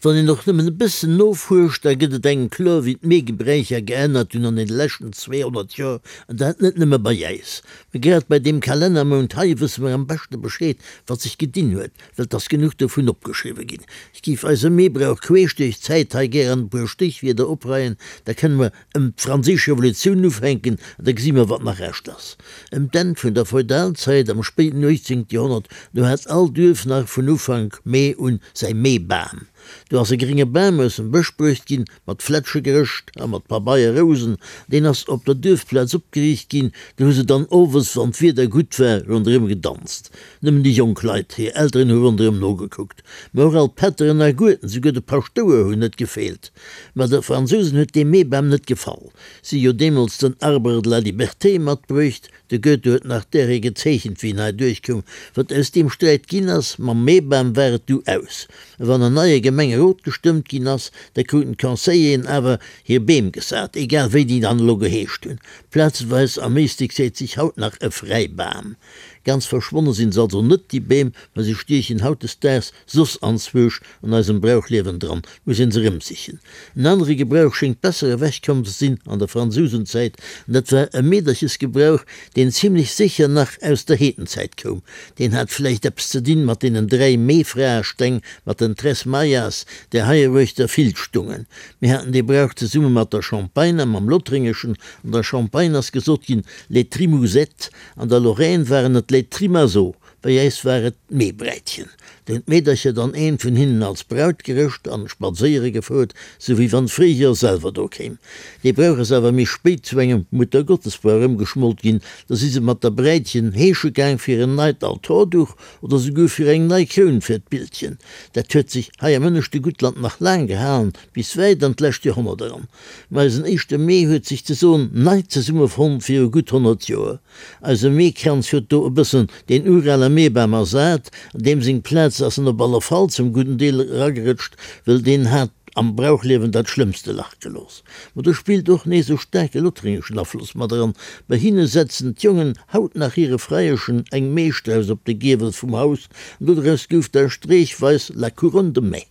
Wann een och nëmmen e bëssen nofuerscht, da gëtt et engem kloer, wéi d'Meegebräicher geännert hunn an deene leschten 200 Joer, an dat net nëmme bei äis. Mä grad bei deem Kalennermount hei wësse mer am beschte Bescheed, wat sech gedinn huet, well 't ass genuch dovun opgeschriwwe ginn. Ech géif eise Meebrauch queesch duerch d'Zäit hei gär an e puer Stéchwierder opreien, da kënne mer ëm d'Franséisch Revolutioun ufänken an da gesi mer, wat nach Rescht ass. Ëm d'Enn vun der Feudalzäit, am spéiden 18. Joerhonnert, do hat all Duerf nach vun Ufank Mee un säi Meebam. Do ass e grénge Bam aus dem Bësch bruecht ginn, mat Flätsche gerëscht a mat Pabeierrousen. Deen ass op der Duerfplaz opgeriicht ginn. Do hu se dann owes, wann d'Wieder gutt war, ronderëm gedanzt. Nëmmen déi jonk Leit, hir Elteren hu ronderëm nogekuckt. Mä och all d'Pätteren a Gueden, souguer de Paschtouer hunn net gefeelt. Mä de Fransousen huet dee Meebam net gefall. Si hu jo deemools den Arbre de la liberté matbruecht. De Goethe huet nach däri gezeechent, wéi en hei duerchkoum. Wat aus deem Sträit ginn ass, mam Meebam war et du aus. A wann en neie Gemengerot gestëmmt ginn ass, da kruten d'Conseilleren awer hir Beem gesat, egal wéi déi dann elo geheescht hunn. Plazeweis am Éislek seet sech haut nach e Fräibam. Ganz verschwonne sinn se also net, déi Beem, mä se stiechen hautdesdaags soss anzwousch an eisem Brauchliewen dran, muss een se erëmsichen. En anere Gebrauch schéngt besser ewechkomm ze sinn an der Fransousenzäit, an dat war e Meederchesgebrauch, deen zimlech sécher nach aus der Heedenzäit koum. Deen hat vläicht eppes ze dinn mat deenen 3 Meefraesteng, mat den Tres Maias, déi heieruechter vill stungen. Mir haten dee Brauch zesumme mat der Champagne a mam Lothréngeschen. An der Champagne ass gesot ginn, les Trimousettes, An der Lorraine waren et les Trimazots, bei äis war et d'Meebräitchen. Do hunn d'Meedercher dann eent vun hinnen als Braut gerëscht an spadséiere gefouert, sou wéi wann d'Fréijoer selwer do kéim. Dee Brauch ass awer méi spéit zu engem Muttergottesbrauch ëmgeschmolt ginn, da si se mat der Bräitchen heesche gaang fir en neit Altorduch oder souguer fir eng nei Kroun fir d'Bildchen. Dat huet sech hei am ënneschte Guttland nach laang gehalen, bis wäit an d'lescht Joerhonnert eran. Ma eisen éischte Mee huet sech ze soen nei zesummefonnt viru gutt 100 Joer. Eise Meekranz huet do e bëssen deen urale Meebam ersat, an deem seng Plaz ass en op alle Fall zum gudden Deel eragerëtscht, wëll deen hat am Brauchliewen dat schlëmmste Lach gelooss. Ma do spillt och nees e staarke lothringeschen Afloss mat eran, bei hinne setzen d'Jongen haut nach hire Freieschen eng Meestrauss op de Giewel vum Haus, an dodraus gouf da streechweis la couronne de mai.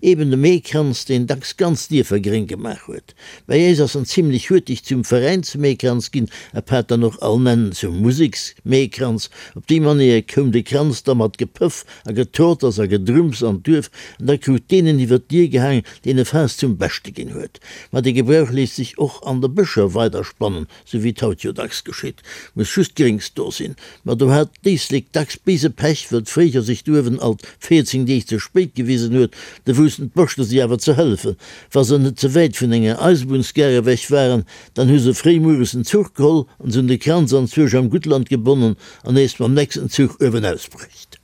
Eben de Meekranz, deen dacks ganz Dierfer gréng gemaach huet. Bei äis ass en zimlech huerteg zum Veräinsmeekranz ginn, apaart dann och all nennen zum Museksmeekranz. Op déi Manéier koum de Kranz da mat Gepëff a Getorters a Gedrumms an d'Duerf, an da krut deen en iwwer d'Dier gehaang, deen e Faass zum Beschte ginn huet. Ma de Gebrauch léisst sech och an de Bëscher weiderspannen, Sou wéi et haut jo dacks geschitt, muss just Gréngs do sinn. Ma do hat d'Éislek dacks béise Pech, wëll d'Fréijoer sech douewen alt 14 Deeg ze spéit gewisen huet. Do woussten d'Boschter si awer ze hëllefen. Wa se net ze wäit vun enger Eisebunnsgare ewech waren, dann hu se fréi mueres en Zuch geholl an se hunn de Kranz anzwousch am Guttland gebonnen an nees mam nächsten Zuch uewenaus bruecht.